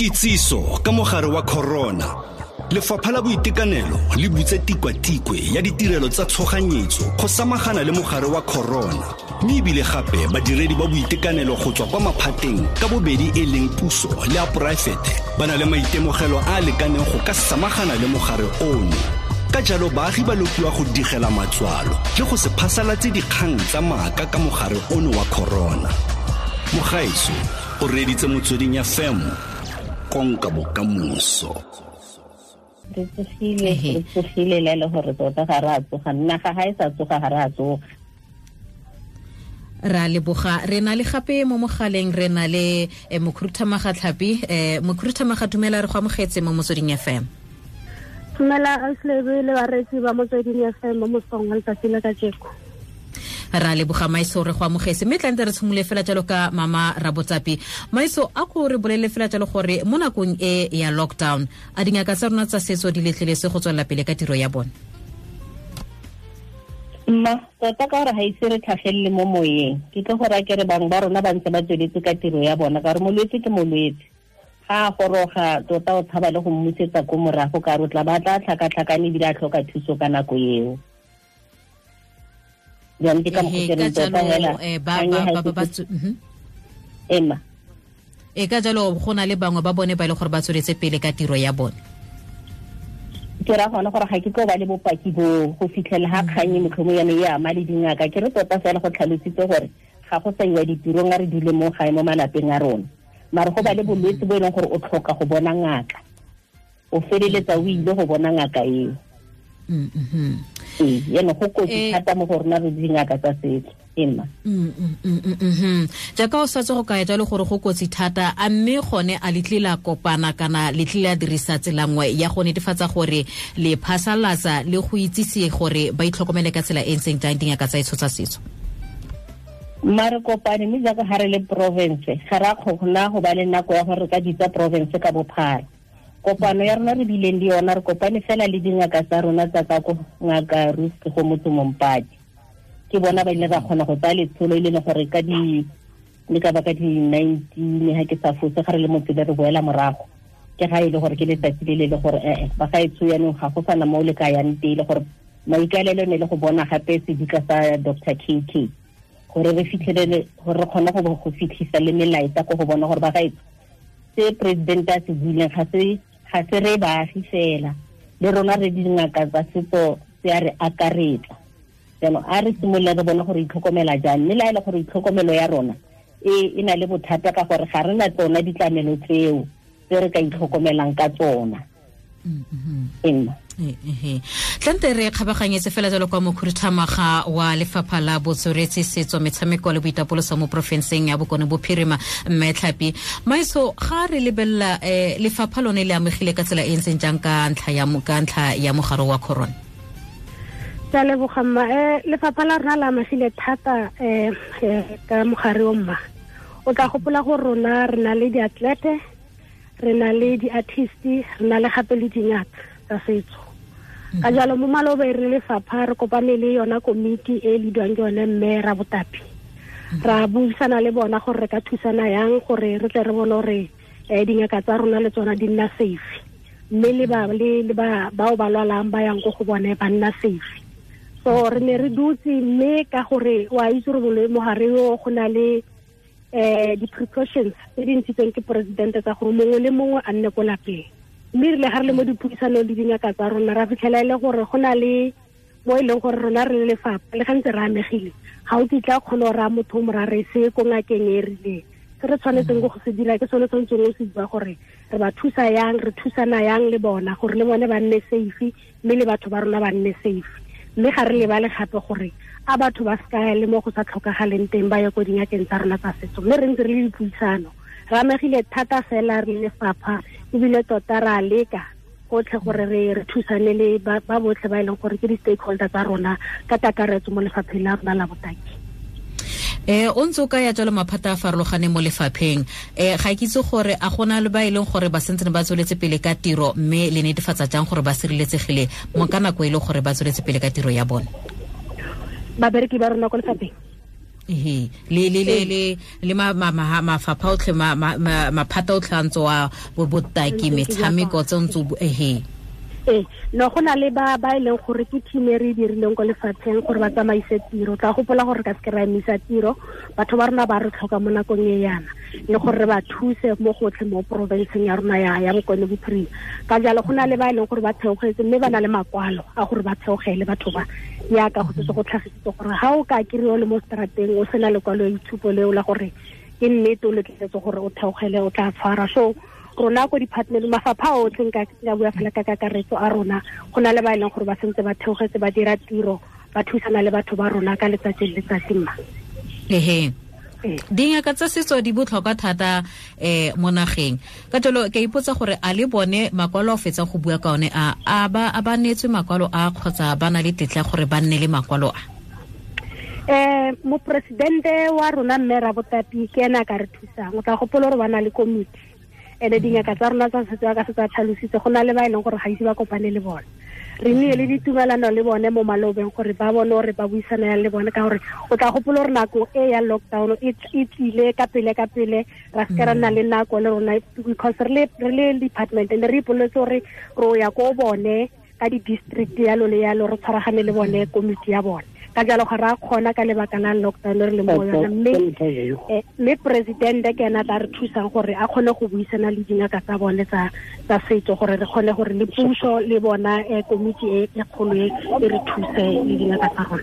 Kitsiso ka mogare wa corona. Lefapha la Boitekanelo le butse tikwatikwe ya ditirelo tsa tshoganyetso go samagana le mogare wa corona, mme ebile gape badiredi ba boitekanelo go tswa kwa maphateng ka bobedi e leng puso le a poraefete ba na le maitemogelo a a lekaneng go ka samagana le mogare ono. Ka jalo baagi ba lopiwa go digela matswalo le go se phasalatse dikgang tsa maaka ka mogare ono wa corona. Mogaetso o reeditse Motsweding FM, konka bokamoso. Re tsogile, re tsogile le le gore tota ga re a tsoga, naga ga e sa tsoga ga re a tsoga. Ra leboga. Re na le gape mo mogaleng, re na le Mokhuruthamaga Tlhapi. Mokhuruthamaga, dumela, re go amogetse mo Motsweding FM. Dumela Auslebe le bareetsi ba Motsweding FM mo mosong wa letsatsi la kajeko. Ra leboga Maiso, re go amogetse. Mme tlante re tshimole fela jalo ka mama Rabotsapi. Maiso, a ko re bolele fela jalo gore mo nakong e ya lockdown, a dingaka tsa rona tsa setso di letleletse go tswelela pele ka tiro ya bone? Mma, tota ka gore ga ise re tlhagelele mo moyeng, ke tlo go raya ke re bangwe ba rona ba ntse ba tsweletse ka tiro ya bona, ka gore molwetse ke molwetse. Ga a goroga tota o tshaba le go mmusetsa ko morago, ka re o tla ba tla tlhakatlhakane ebile a tlhoka thuso ka nako eo. Jaanong ke ka mokgwa ke reng tota hela, ema. E ka jalo go na le bangwe ba bone ba e le gore ba tsweletse pele ka tiro ya bone. Ke ra gona gore ga ke tlo ba le bopaki bo go fitlhela ga kgang e motlhomo yane e ama le dingaka. Ke re tota fela go tlhalositse gore ga go sa iwa ditirong, a re dule mo gae mo malapeng a rona, mare go ba le bolwetse bo e leng gore o tlhoka go bona ngaka, o feleletsa o ile go bona ngaka eo. Ee, jaanong go kotsi thata mo go rona re dingaka tsa setso. Emma. Jaaka o setse go kaya jalo gore go kotsi thata, a mme gone a le tlile la kopana kana le tlile la dirisa tsela nngwe ya go netefatsa gore le phasalatsa le go itsise gore ba itlhokomele ka tsela e ntseng jang dingaka tsa etsho tsa setso? Mma, re kopane, mme jaaka ga re le province ga re a kgona go ba le nako ya gore re ka bitsa province ka bophara. Kopano ya rona re bileng le yona, re kopane fela le dingaka tsa rona tsa ka ko ngaka Ruth go motho Mompati. Ke bona ba ile ba kgona go tsaya letsholo e leng gore ka di le ka ba ka di 19 ha ke sa fose ga re le motse re boela morago. Ke ga e le gore ke letsatsi le le le gore ba ga e tsho yanong ga go sana mo le ka yang teng, le gore maikaelelo ne le go bona gape sedika sa Doctor KK gore re fitlhelele gore re kgone go fitlhisa le melaetsa ko go bona gore ba ga e se president a se buileng ga se re baagi fela, le rona re dingaka tsa setso se a re akaretsa. Jaanong a re simolole re bone gore itlhokomela jang, mme le ha e le gore itlhokomelo ya rona e na le bothata ka gore ga re na tsona ditlamelo tseo tse re ka itlhokomelang ka tsona. Emma. Tlante re kgabaganyetse fela jalo kwa mokhuduthamaga wa lefapha la botsweretshi, setso, metshameko le boitapoloso mo porofenseng ya Bokone Bophirima, mme Tlhapi. Maiso, ga re lebelela lefapha lone le amegile ka tsela e ntseng jang ka ntlha ya mogare wa corona? Ke a leboga mma. Lefapha la rona le amegile thata ka mogare o mma. O tla gopola gore rona re na le diatlete, re na le di-artist, re na le gape le dingaka tsa setso. Ka jalo mo malobeng re lefapha re kopane le yona komiti e leadwang ke yone mme Rabotapi. Ra buisana le bona gore re ka thusana yang gore re tle re bone gore dingaka tsa rona le tsona di nna safe, mme le bao ba lwalang ba yang ko go bone ba nna safe. So re ne re dutse, mme ka gore wa itse gore mogare o go na le di-precautions tse di ntshitsweng ke presidente tsa gore mongwe le mongwe a nne ko lapeng. Mme re le ga re le mo dipuisanong le dingaka tsa rona ra fitlhela e le gore go na le mo e leng gore rona re le lefapha le gantse re amegile, ga o kitla kgone go raya motho o mo ra re se ko ngakeng e rileng. Se re tshwanetseng go se dira ke sone tshwanetseng o se bua gore re ba thusa yang, re thusana yang le bona gore le bone ba nne safe, mme le batho ba rona ba nne safe. Mme ga re lebale gape gore a batho ba se ka le mo go sa tlhokagaleng teng ba ye ko dingakeng tsa rona tsa setso. Mme re ntse re le dipuisano, re amegile thata fela re le lefapha, ebile tota re a leka gotlhe gore re thusane le ba botlhe ba e leng gore ke di-stakeholder tsa rona ka kakaretso mo lefapheng la rona la botaki. O ntse o ka ya jalo maphata a farologaneng mo lefapheng. Ga ke itse gore a gona le ba e leng gore ba sentse ba tsweletse pele ka tiro, mme le netefatsa jang gore ba sireletsegile mo ka nako e leng gore ba tsweletse pele ka tiro ya bone? Babereki ba rona ko lefapheng? Ehe, le le le le le ma ma mafapha otlhe, maphata otlhe a ntse wa botaki, metshameko tse ntse ehe. Ee, no, go na le ba ba e leng gore ke team e re e dirileng ko lefatsheng gore ba tsamaise tiro. Tla gopola gore ka seke ra emisa tiro, batho ba rona ba re tlhoka mo nakong e yana, le gore re ba thuse mo gotlhe mo porofenseng ya rona ya Bokone Bophirima. Ka jalo go na le ba e leng gore ba theogetse, mme ba na le makwalo a gore ba theogele batho ba, yaka go setse go tlhagisitse gore ga o ka kry-o le mo strateng o sena lekwalo itshupo leo la gore ke nnete o letleletse gore o theogele, o tla tshwara. So rona ko department, mafapha otlhe, nka bua fela ka kakaretso a rona, go na le ba e leng gore ba sentse ba theogetse, ba dira tiro, ba thusana le batho ba rona ka letsatsi le letsatsi mma. Ehe, dingaka tsa setso di botlhokwa thata mo nageng. Ka jalo ke ipotsa gore a le bone makwalo a fetsa go bua ka one a a ba a ba neetswe makwalo a, kgotsa ba na le tetla gore ba nne le makwalo a? Moporesidente wa rona mme Rabotapi ke ena a ka re thusang. O tla gopola gore ba na le komiti, ene dingaka tsa rona tsa setso ka setso a tlhalositse, go na le ba e leng gore ga ise ba kopane le bone. Re nnile le ditumelano le bone mo malobeng gore ba bone gore ba buisana yang le bone, ka gore o tla gopola gore nako e ya lockdown e tlile ka pele ka pele, ra seke ra nna le nako le rona, because re le department ne re ipoletse gore ro ya ko bone ka di-district yalo le yalo, re tshwaragane le bone komiti ya bone. Ka jalo ga ra kgona ka lebaka la lockdown re le mo yona, mme president ke ena tla re thusang gore a kgone go buisana le dingaka tsa bone tsa setso, gore re kgone gore le puso le bona komiti e kgolo e re thuse le dingaka tsa rona.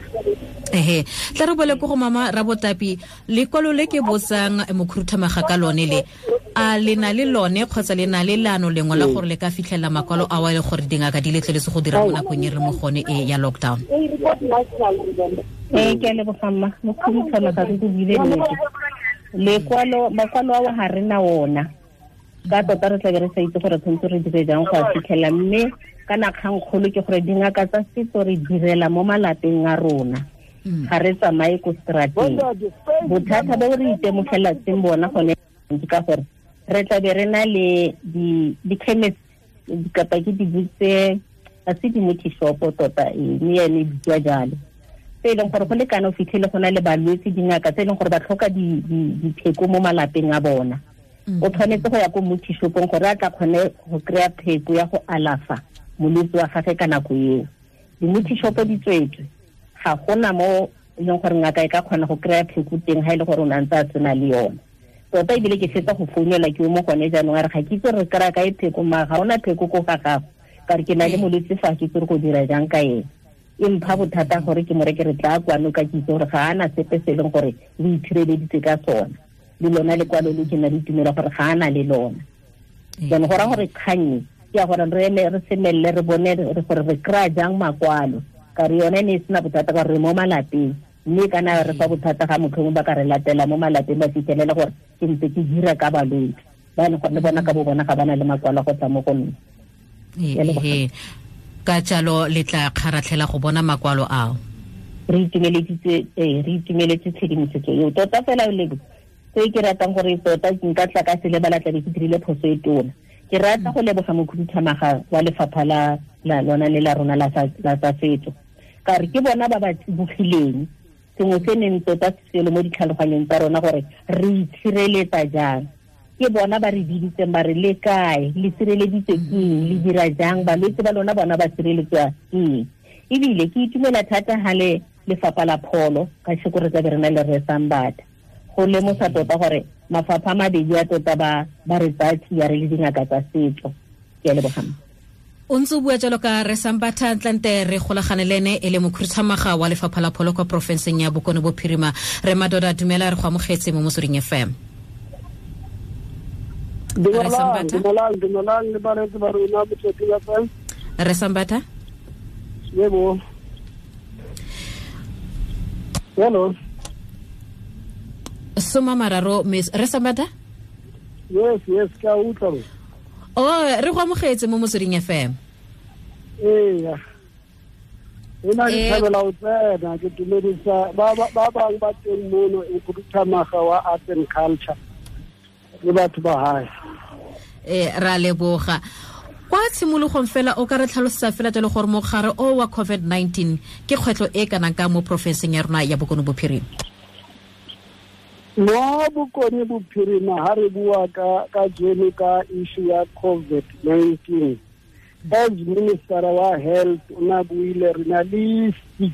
Ehe, tla re bole ko go mama Rabotapi, lekwalo le ke botsang mokhuruthamaga ka lone le, a le na le lone kgotsa le na le leano lengwe la gore le ka fitlhelela makwalo a wa le gore dingaka di letleletse go dira mo nakong e re mo gone e ya lockdown? Ee, ke a leboga mma. Mokhuruthamaga re go buile nnete, lekwalo, makwalo ao ga re na ona, ka tota re tlabe re sa itse gore tshwanetse re dire jang go a fitlhela. Mme kana kgangkgolo ke gore dingaka tsa setso re direla mo malapeng a rona, ga re tsamaye ko strateng. Bothata bo re itemogelatseng bona gone ke ka gore re tlabe re na le di-chemist kapa ke di-butse, ga se di-multi shop tota, mme yone e bitsiwa jalo, tse e leng gore go lekana o fitlhele go na le balwetse, dingaka tse e leng gore ba tlhoka dipheko mo malapeng a bona. O tshwanetse go ya ko multi shopong gore a tla kgone go kry-a pheko ya go alafa molwetse wa gagwe ka nako eo. Di-multi shop di tswetswe, ga gona mo e leng gore ngaka e ka kgona go kry-a pheko teng ga e le gore o ne a ntse a tsena le yone. Tota ebile ke fetsa go founela ke o mo gone jaanong, a re ga ke itse re kry-a kae pheko, mara ga ona pheko ko ga gago, ka re ke na le molwetse fa, ke itse re go dira jang ka ene. E mpha bothata gore ke mo reke re tla kwano, ka ke itse gore ga ana sepe se e leng gore o itshireleditse ka sona, le lona lekwalo le ke na le tumelo gore ga ana le lona. Jaanong go raya gore kgang ke ya gore re eme re semelele re bone gore re kry-a jang makwalo, ka re yone e ne e sena bothata ka gore re mo malapeng, mme kana re fa bothata ga motlhomong ba ka re latela mo malapeng ba fitlhelele gore ke ntse ke dira ka balwetse ba e leng gore le bona ka bo bona ga ba na le makwalo go tla mo go nna. Ka jalo le tla kgaratlhela go bona makwalo ao. Re itumeletse tshedimosetso eo tota fela. Le se ke ratang gore tota nka tla ka se lebala, tlabe ke dirile phoso e tona. Ke rata go leboga mokhuduthamaga wa lefapha la lona le la rona la tsa setso, ka re ke bona ba ba tsibogileng sengwe se neng tota selo mo ditlhaloganyong tsa rona gore re itshireletsa jang. Ke bona ba re biditseng ba re le kae, le sireleditswe ke eng, le dira jang, balwetse ba lona bona ba sireletswa ke eng. Ebile ke itumela thata ha le lefapha la pholo ka sheko re tlabe re na le Rre Sambata go lemosa tota gore mafapha a mabedi a tota ba re tsaya tsia re le dingaka tsa setso. Ke a leboga. O ntse o bua jalo ka Rre Sambata, ntlante re golagane le ene e le mokhuduthamaga wa lefapha la pholo kwa porofenseng ya Bokone Bophirima. Re Madoda, dumela, re go amogetse mo Motsweding FM. Dumelang le bareetsi ba rona Motsweding FM. Rre Sambata? Yebo. Hello. 30 Miss Rre Sambata? Yes, ke a utlwa. Oh, re go amogetse mo Motsweding FM. Ee. Ena ke thabela ho tsena, ke dumedisa ba bang ba teng mono e khuduthamaga wa Art and Culture le batho ba hae. Ra leboga. Kwa tshimologong fela o ka re tlhalosetsa fela jalo gore mogare o wa COVID-19 ke kgwetlho e kanang ka mo porofenseng ya rona ya Bokone Bophirima? Mo Bokone Bophirima ha re bua ka jeno ka issue ya COVID-19, as Minister wa Health o na buile, re na le 6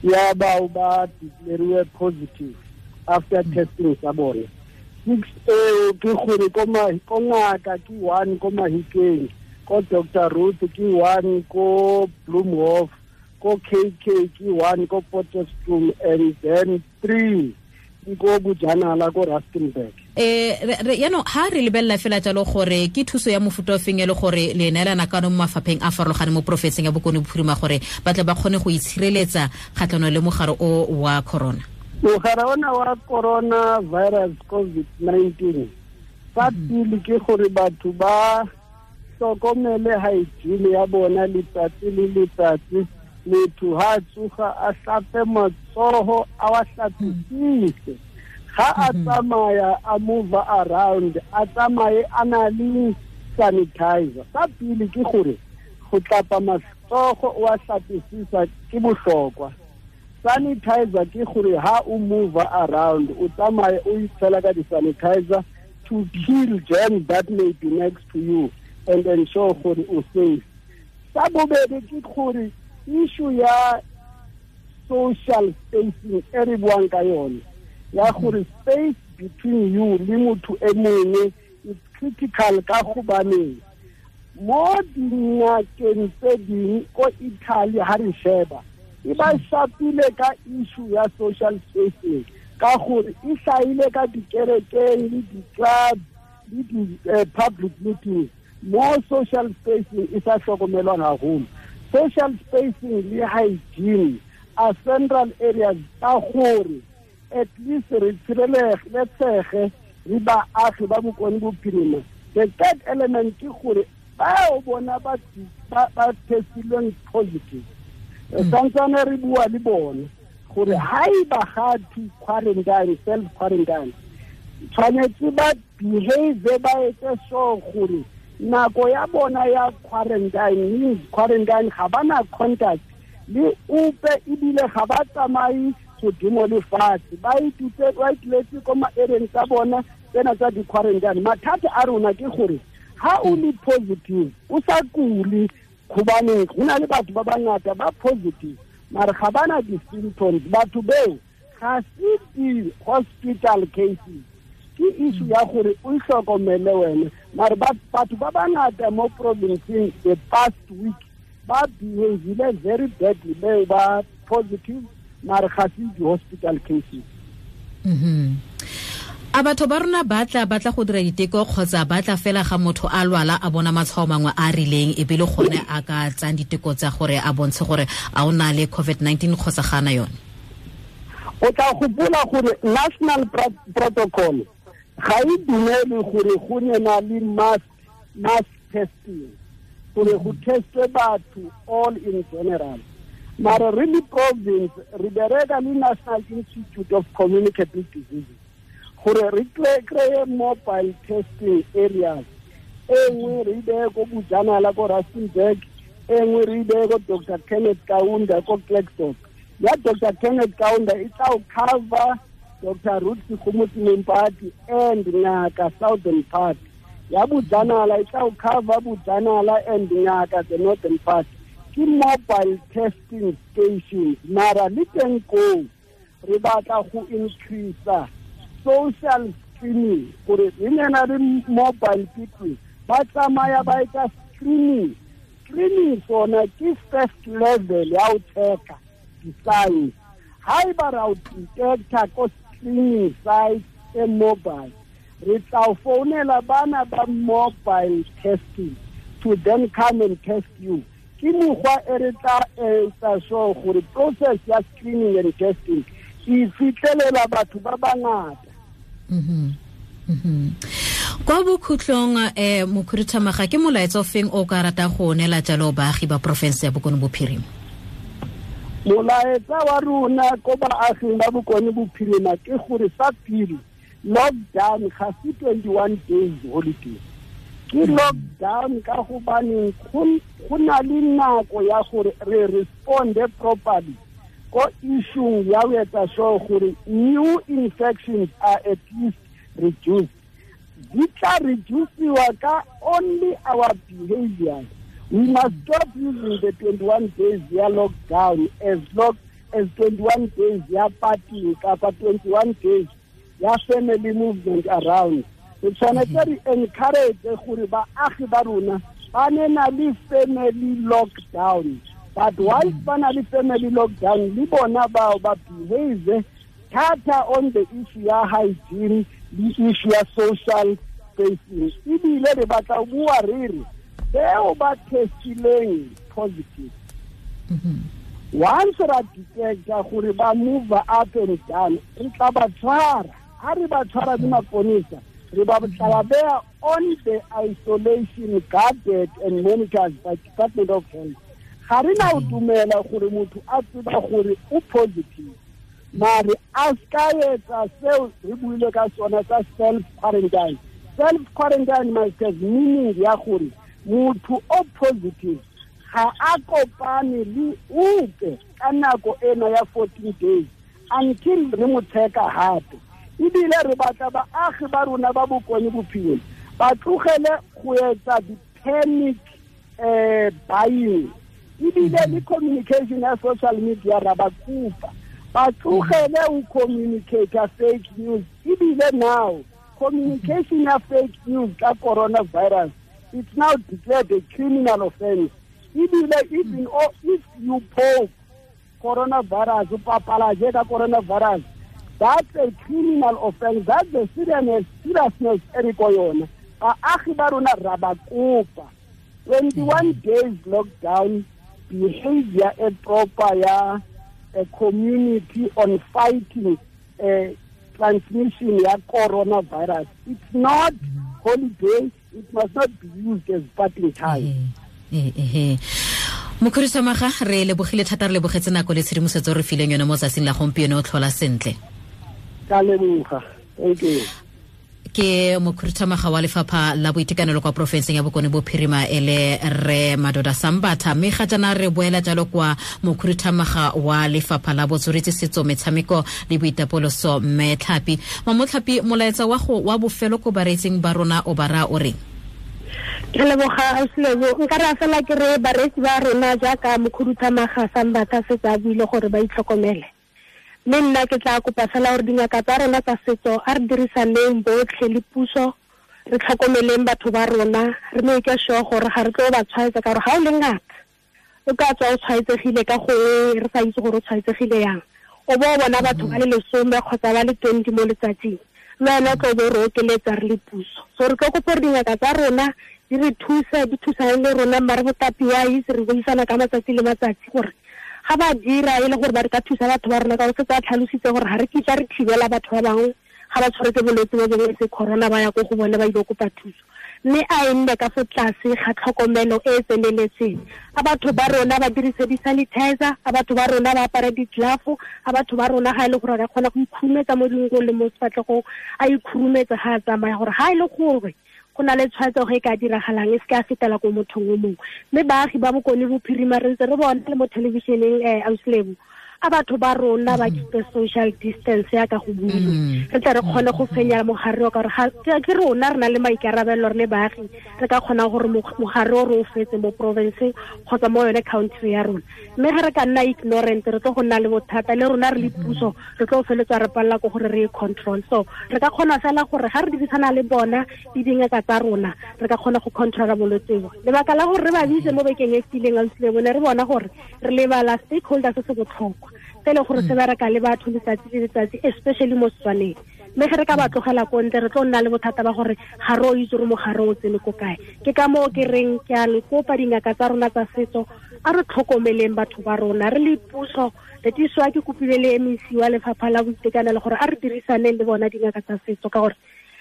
ya bao ba declariwe positive after testing tsa bone. 6 eo ke gore ko ngaka ke 1 ko Mahikeng, ko Dr. Ruth ke 1 ko Bloemhof, ko KK ke 1 ko Potchefstroom, and then 3 ko Bojanala ko Rustenburg. Yaanong ha re lebelela fela jalo gore ke thuso ya mofuta o feng e le gore le neelana ka mo mafapheng a farologaneng mo porofenseng ya Bokone Bophirima gore ba tle ba kgone go itshireletsa kgatlhanong le mogare o wa corona? Mogare ona wa corona virus COVID-19, sa pele ke gore batho ba hlokomele hygiene ya bona letsatsi le letsatsi. Motho ha tsoga a hlape matsoho, a wa hlapisise. Ga a tsamaya a move around, a tsamaye a na le sanitizer. Sa pele ke gore go tlapa matsogo o a hlapisisa ke bohlokwa. Sanitizer ke gore ha o move around o tsamaye o itshela ka di-sanitizer to kill germs that may be next to you and ensure gore o safe. Sa bobedi ke gore issue ya social spacing e re buang ka yone, ya gore space between you le motho e mongwe is critical, ka gobaneng mo dingakeng tse ding ko Italy ha re sheba e ba shapile ka issue ya social spacing, ka gore e hlaile ka dikerekeng le di-club le di-public meetings mo social spacing e sa hlokomelwang haholo. Social spacing le hygiene are central areas ka gore at least re tshireletsege re baagi ba Bokone Bophirima. The third element ke gore bao bona ba testilweng positive, santsane re bua le bone gore ha eba ga to quarantine, self quarantine, tshwanetse ba behave, ba etse sure gore nako ya bona ya quarantine means quarantine, ga bana contact le ope, ebile ga ba tsamaye godimo le fatshe, ba ituletse ko maereng tsa bona tsena tsa di-quarantine. Mathata a rona ke gore ha o le positive o sa kule, gobaneng go na le batho ba bangata ba positive mare ga bana di-symptoms. Batho beo ga se di-hospital cases, ke issue ya gore o hlokomele wena. Mare batho ba bangata mo provinceng the past week ba behavile very badly, beo ba positive mare ga se di-hospital cases. A batho ba rona ba tla go dira diteko kgotsa ba tla fela ga motho a lwala a bona matshwao mangwe a rileng e be le gone a ka tsang diteko tsa gore a bontshe gore a o na le COVID-19 kgotsa ga ana yone? O tla gopola gore national protocol ga e dumele gore go nna le mass testing, gore go testwe batho all in general. Mara re le province re bereka le National Institute of Communicable Diseases gore re kreye mobile testing areas. E nngwe re beye ko Bojanala ko Rustenburg, e nngwe re beye ko Dr. Kenneth Kaunda ko Klerksdorp. Ya Dr. Kenneth Kaunda e tla cover Dr. Ruth Segomotsi Mompati and Ngaka Southern part. Ya Bojanala e tla cover Bojanala and Ngaka the Northern part. Ke mobile testing stations, mara le teng koo re batla go increase social screening, gore re nena le mobile people ba tsamaya ba etsa screening. Screening sona ke first level ya ho check-a di-signs. Ha eba ra o detecta ko screening site e mobile, re tla founela bana ba mobile testing to then come and test you. Ke mokgwa e re tla etsa sure gore process ya screening and testing e fitlhelela batho ba bangata. Kwa bokhutlong mokhuduthamaga, ke molaetsa o feng o ka rata go neela jalo baagi ba porofense ya Bokone Bophirima? Molaetsa wa rona ko baaging ba Bokone Bophirima ke gore sa pele, lockdown ga se 21 days holiday. Ke lockdown ka gobaneng go na le nako ya gore re responde properly Ko issue ya ho etsa sure gore new infections are at least reduced. Di tla reduciwa ka only our behavior. We must stop using the 21 days ya lockdown as long as 21 days ya party kapa 21 days ya family movement around. Re tshwanetse re encourage gore baagi ba rona ba ne na le family lockdown. But once ba na le family lockdown, le bona bao ba behave thata on the issue ya hygiene, le issue ya social spacing. Ebile re batla ho bua re re bao ba testileng positive. Once ra detecta gore ba move up and down, re tla ba tshwara. Ha re ba tshwara le maponesa, re ba tla ba on the isolation, guarded and monitored by Department of Health. Ga re na o dumela gore motho a tseba gore o positive, mare a ska etsa seo re buile ka sona sa self quarantine. Self quarantine must have meaning ya gore motho o positive ga a kopane le ope ka nako ena ya 14 days until re mo checka hape. Ebile re batla baagi ba rona ba Bokone Bophirima ba tlogele go etsa di-panic buying. Ebile le communication ya social media ra ba kopa ba tlogele ho communicate fake news. Ebile now communication ya fake news ka coronavirus, it's now declared a criminal offense. Ebile even if you post coronavirus, o papalaje ka coronavirus, that's a criminal offense. That's the seriousness e re ko yona. Baagi ba rona ra ba kopa 21 days lockdown, behavior e proper ya a community on fighting transmission ya coronavirus. It's not holiday. It must not be used as party time. Mokhuduthamaga, re lebogile thata, re lebogetse nako le tshedimosetso re fileng yone mo tsatsing la gompieno. O tlhola sentle. Ka leboga. Thank you. Ke mokhuduthamaga wa lefapha la boitekanelo kwa porofenseng ya Bokone Bophirima e le re Madoda Sambatha. Mme ga jaana re boela jalo kwa mokhuduthamaga wa lefapha la botsweretshi, setso, metshameko le boitapoloso, mme Tlhapi. Mamotlhapi, molaetsa wa go wa bofelo ko bareetsing ba rona o ba raya o reng? Ke leboga Ausilebo. Nka re fela ke re bareetsi ba rona jaaka mokhuduthamaga Sambatha setse a buile gore ba itlhokomele. Mme nna ke tla kopa fela gore dingaka tsa rona tsa setso a re dirisaneng botlhe le puso, re tlhokomeleng batho ba rona, re make sure gore ga re tlo ba tshwaetsa, ka gore ga o le ngaka o ka tswa o tshwaetsegile ka gongwe re sa itse gore o tshwaetsegile yang, o bo bona batho ba le 10 kgotsa ba le 20 mo letsatsing, le wena o tlo bo re okeletsa re le puso. So re tlo kopa gore dingaka tsa rona di re thuse, di thusane le rona, mare botapi wa itse re buisana ka matsatsi le matsatsi gore ga ba dira e le gore ba re ka thusa batho ba rona, ka gore setse a tlhalositse gore ga re kitla re thibela batho ba bangwe ga ba tshwaretse bolwetse bo bongwe se corona ba ya ko go bone ba ile kopa thuso. Mme a e nne ka fo tlase ga tlhokomelo e e tseneletseng. A batho ba rona ba dirise di-sanitizer, a batho ba rona ba apare di-glove, a batho ba rona ga e le gore ba kgona go ikhurumetsa mo dinkong le mo sefatlhegong, a ikhurumetsa ga a tsamaya, gore ga e le gore go na le tshwaetsego e ka diragalang e se ka fetela ko mothong o mongwe. Mme baagi ba Bokone Bophirima re ntse re bona le mo thelebišeneng Ausilebo, a batho ba rona ba keep social distance ya ka go buile, re tle re kgone go fenya mogare o, ka gore ke rona re na le maikarabelo re le baagi, re ka kgona gore mogare o re o fetse mo provinceng kgotsa mo yone country ya rona. Mme ga re ka nna ignorant, re tlo go nna le bothata le rona re le puso, re tlo feletsa re palela ko gore re e control. So re ka kgona fela gore ga re dirisana le bona le dingaka tsa rona, re ka kgona go controla bolwetse bo. Lebaka la gore re ba bitse mo bekeng e fetileng Ausilebo, ne re bona gore re lebala stakeholders se se botlhokwa se e leng gore se bereka le batho letsatsi le letsatsi, especially mo Setswaneng. Mme ge re ka ba tlogela ko ntle, re tlo nna le bothata ba gore ga re o itse gore mogare o tsene ko kae. Ke ka moo ke reng ke a le kopa dingaka tsa rona tsa setso, a re tlhokomeleng batho ba rona re le puso. Letiswa ke kopile le MEC wa lefapha la boitekanelo gore a re dirisaneng le bona dingaka tsa setso, ka gore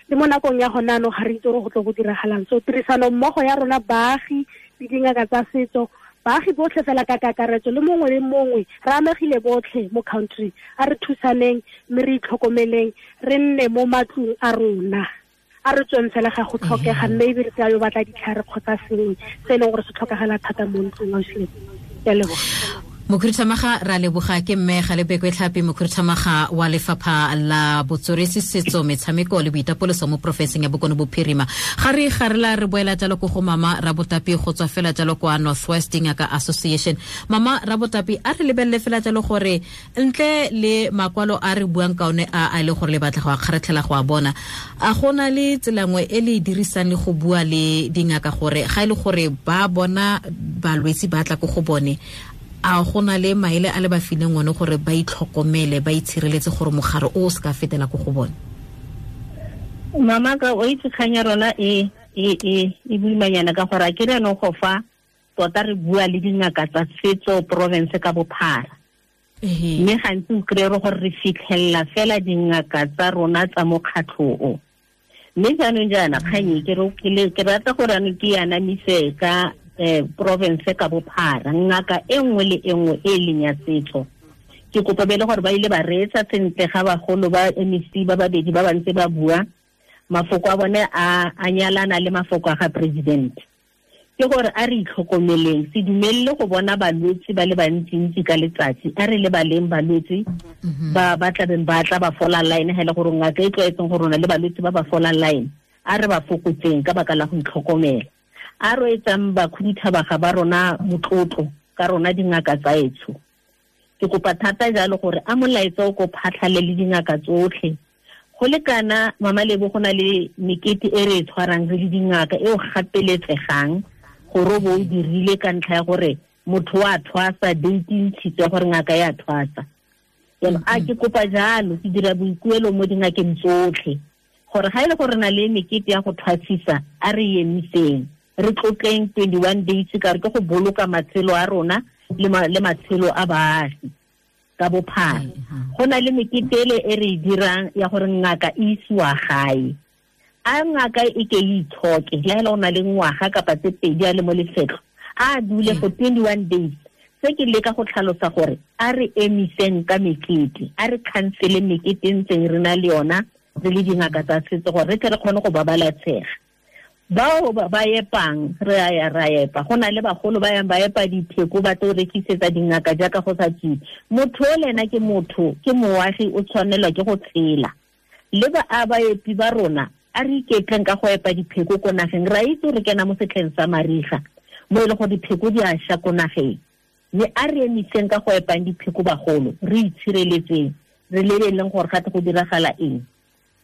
le mo nakong ya gona anong ga re itse gore go tlo go diragalang. So tirisano mmogo ya rona baagi le dingaka tsa setso, baagi botlhe fela ka kakaretso le mongwe le mongwe, re amegile botlhe mo country, a re thusaneng mme re itlhokomeleng, re nne mo matlong a rona, a re tsweng fela ga go tlhokega, mme ebile re yo batla ditlhare kgotsa sengwe se e leng gore se tlhokagala thata mo ntlong. Ausilebo, ke a leboga. Mokhuduthamaga ra leboga ke mme Galebekwe Tlhapi, mokhuduthamaga wa lefapha la botsweretshi, setso, metshameko le boitapoloso mo porofenseng ya Bokone Bophirima. Ga re gare la re boela jalo ko go Mama Rabotapi go tswa fela jalo kwa Northwest Ngaka Association. Mama Rabotapi, a re lebelele fela jalo gore ntle le makwalo a re buang ka one a le gore le batla go a kgaratlhela go a bona, a gona le tsela nngwe e le e dirisang le go bua le dingaka gore ga e le gore ba bona balwetsi ba tla ko go bone, a gona le maele a le ba fileng one gore ba itlhokomele, ba itshireletse gore mogare o se ka fetela ko go bone? Mama ka o itse kgang ya rona e boimanyana ka gore a ke re anong go fa tota re bua le dingaka tsa setso province ka bophara. Mme gantsi o kry-e gore re fitlhelela fela dingaka tsa rona tsa mokgatlho o. Mme jaanong jaana kgang e ke rata gore anong ke anamise ka province ka bophara, ngaka e nngwe le e nngwe e leng ya setso. Ke kopa bele gore ba ile ba reetsa sentle ga bagolo ba MEC ba babedi ba ba ntse ba bua, mafoko a bone a nyalana le mafoko a ga president. Ke gore a re itlhokomeleng, se dumelele go bona balwetse ba le bantsintsi ka letsatsi, a re lebaleng balwetse ba ba tlabeng ba tla ba fola line, ga e le gore ngaka e tlwaetseng go rona le balwetse ba ba fola line, a re ba fokotseng ka baka la go itlhokomela. A re etsang bakhuduthamaga ba rona motlotlo ka rona dingaka tsa etsho. Ke kopa thata jalo gore a molaetsa o ko phatlhale le dingaka tsotlhe. Go lekana Mama Lebo, go na le mekete e re e tshwarang re le dingaka e o gapeletsegang gore o bo o dirile ka ntlha ya gore motho wa thwasa, date e ntshitswe gore ngaka ya thwasa. Jaanong a ke kopa jalo, ke dira boikuelo mo dingakeng tsotlhe gore ga e le gore re na le mekete ya go thwasisa, a re emiseng, re tlotleng 21 days ka re ke go boloka matshelo a rona le matshelo a baagi ka bophara. Go na le mekete ele e re e dirang ya gore ngaka e isiwa gae, a ngaka e ke e itshoke le ha o na le ngwaga kapa tse pedi a le mo lefetlho, a dule for 21 days. Se ke leka go tlhalosa gore a re emiseng ka mekete, a re cancele mekete e ntseng re na le yona re le dingaka tsa setso gore re tle re kgone go babalesega. Bao ba epang re a ya ra epa, go na le bagolo ba yang ba epa dipheko ba tlo rekisetsa dingaka jaaka go sa tswe. Motho o le ena ke motho, ke moagi, o tshwanelwa ke go tshela. Le ba a baepi ba rona a re iketleng ka go epa dipheko ko nageng, ra itse re kena mo setlheng sa mariga mo e le gore dipheko di a ša ko nageng, mme a re emiseng ka go epang dipheko bagolo, re itshireletseng, re lebeleleng gore gate go diragala eng.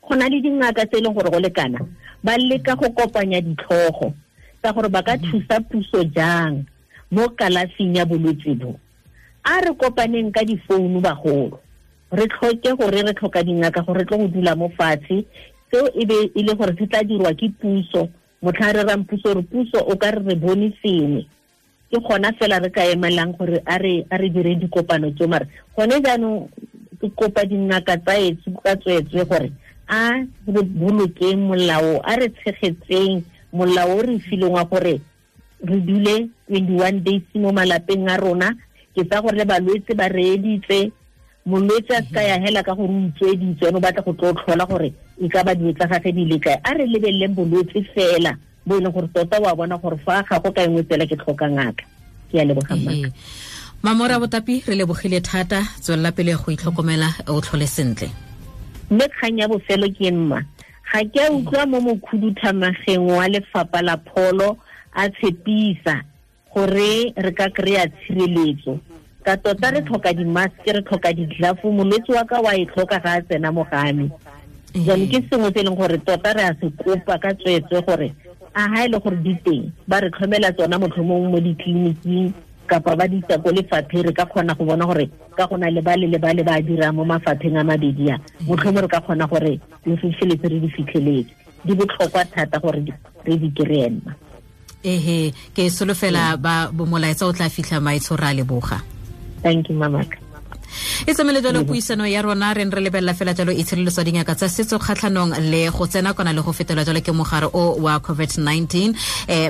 Go na le dingaka tse e leng gore go lekana ba leka go kopanya ditlhogo tsa gore ba ka thusa puso jang mo kalafing ya bolwetse bo. A re kopaneng ka difounu bagolo, re tlhoke gore re tlhoka dingaka gore re tlo go dula mo fatshe, seo e be e le gore se tla dirwa ke puso. Motlha re rang puso re puso o ka re re bone sengwe, ke gona fela re ka emelang gore a re dire dikopano tseo. Mare gone jaanong ke kopa dingaka tsa etsho ka tsweetswe gore a re bolokeng molao, a re tshegetseng molao o re fileng wa gore re dule 21 days mo malapeng a rona. Ke tsa gore le balwetse ba reeditse, molwetse a se ka ya hela ka gore o utsweditswe, ene o batla go tlo tlhola gore e ka ba dilo tsa gagwe di le kae. A re lebeleleng bolwetse fela bo e leng gore tota wa bona gore fa ga go ka engwe tsela ke tlhoka ngaka. Ke a leboga mmaka. Mama Rabotapi, re lebogile thata, tswelela pele go itlhokomela, o tlhole sentle. Mme kgang ya bofelo ke mma, ga ke a utlwa mo mokhuduthamageng wa lefapha la pholo a tshepisa gore re ka kry-a tshireletso. Ka tota re tlhoka di-mask, re tlhoka di-glove, molwetse wa ka wa e tlhoka ga a tsena mo game. Jaanong ke sengwe se e leng gore tota re a se kopa ka tsweetswe gore a ha e le gore di teng ba re tlhomela tsona motlhomong mo ditleliniking kapa ba di isa ko lefapheng, re ka kgona go bona gore ka go na le ba le le ba le ba dirang mo mafapheng a mabedi a, motlhomong re ka kgona gore re fitlheletse re di fitlheletse. Di botlhokwa thata gore re di kry-e mma. Ehe, ke solofela ba molaetsa o tla fitlha maitsho, ra leboga. Thank you, mamaka. E tsamaile jalo puisano ya rona, re re lebelela fela jalo itshireletso dingaka tsa setso kgatlhanong le go tsena kona le go fetela jalo ke mogare o wa COVID-19.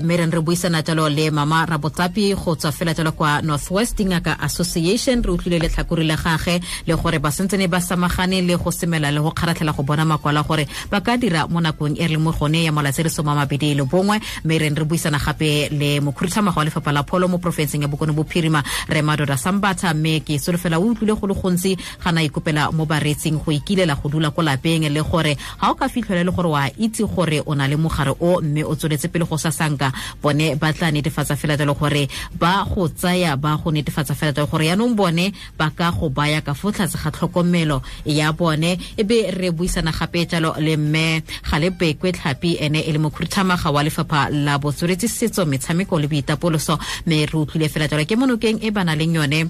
Mme re buisana jalo le Mama Rabotapi go tswa fela jalo kwa Northwest Dingaka Association. Re utlwile letlhakore la gagwe le gore ba sentsene ba samagane le go semela le go kgaratlhela go bona makwalo gore ba ka dira mo nakong e re leng mo gone ya malatsi a le 21. Mme re buisana gape le mokhuduthamaga wa lefapha la pholo mo porofenseng ya Bokone Bophirima, re Madoda Sambatha. Mme ke solofela o utlwile go le gontsi ga na ikopela mo bareetsing go ikilela go dula ko lapeng, le gore ga o ka fitlhela le gore wa itse gore o na le mogare o mme o tsweletse pele go sasanka, bone ba tla netefatsa fela jalo gore ba go tsaya, ba go netefatsa fela jalo gore yaanong bone ba ka go baya ka fo tlase ga tlhokomelo ya bone. Ebe re buisana gape jalo le mme Galebekwe Tlhapi, ene e le mokhuduthamaga wa lefapha la botsweretsi, setso, metshameko le boitapoloso. Mme re utlwile fela jalo ke monokeng e ba nang leng yone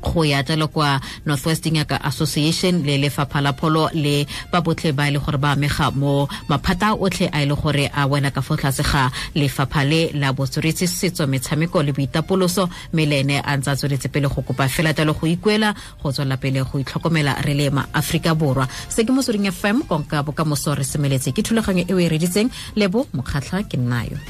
go ya jalo kwa Northwest Dingaka Association le lefapha la pholo le ba botlhe ba e le gore ba amega mo maphata otlhe a e le gore a wela ka fo tlase ga lefapha le la botsweretsi, setso, metshameko le boitapoloso. Mme le ene a ntse a tsweletse pele go kopa fela jalo go ikuela go tswela pele go itlhokomela re le ma Aforika Borwa. Se ke Motsweding FM, konka bokamoso re semeletse. Ke thulaganyo e o e reditseng, Lebo Mokgatlha ke nnayo.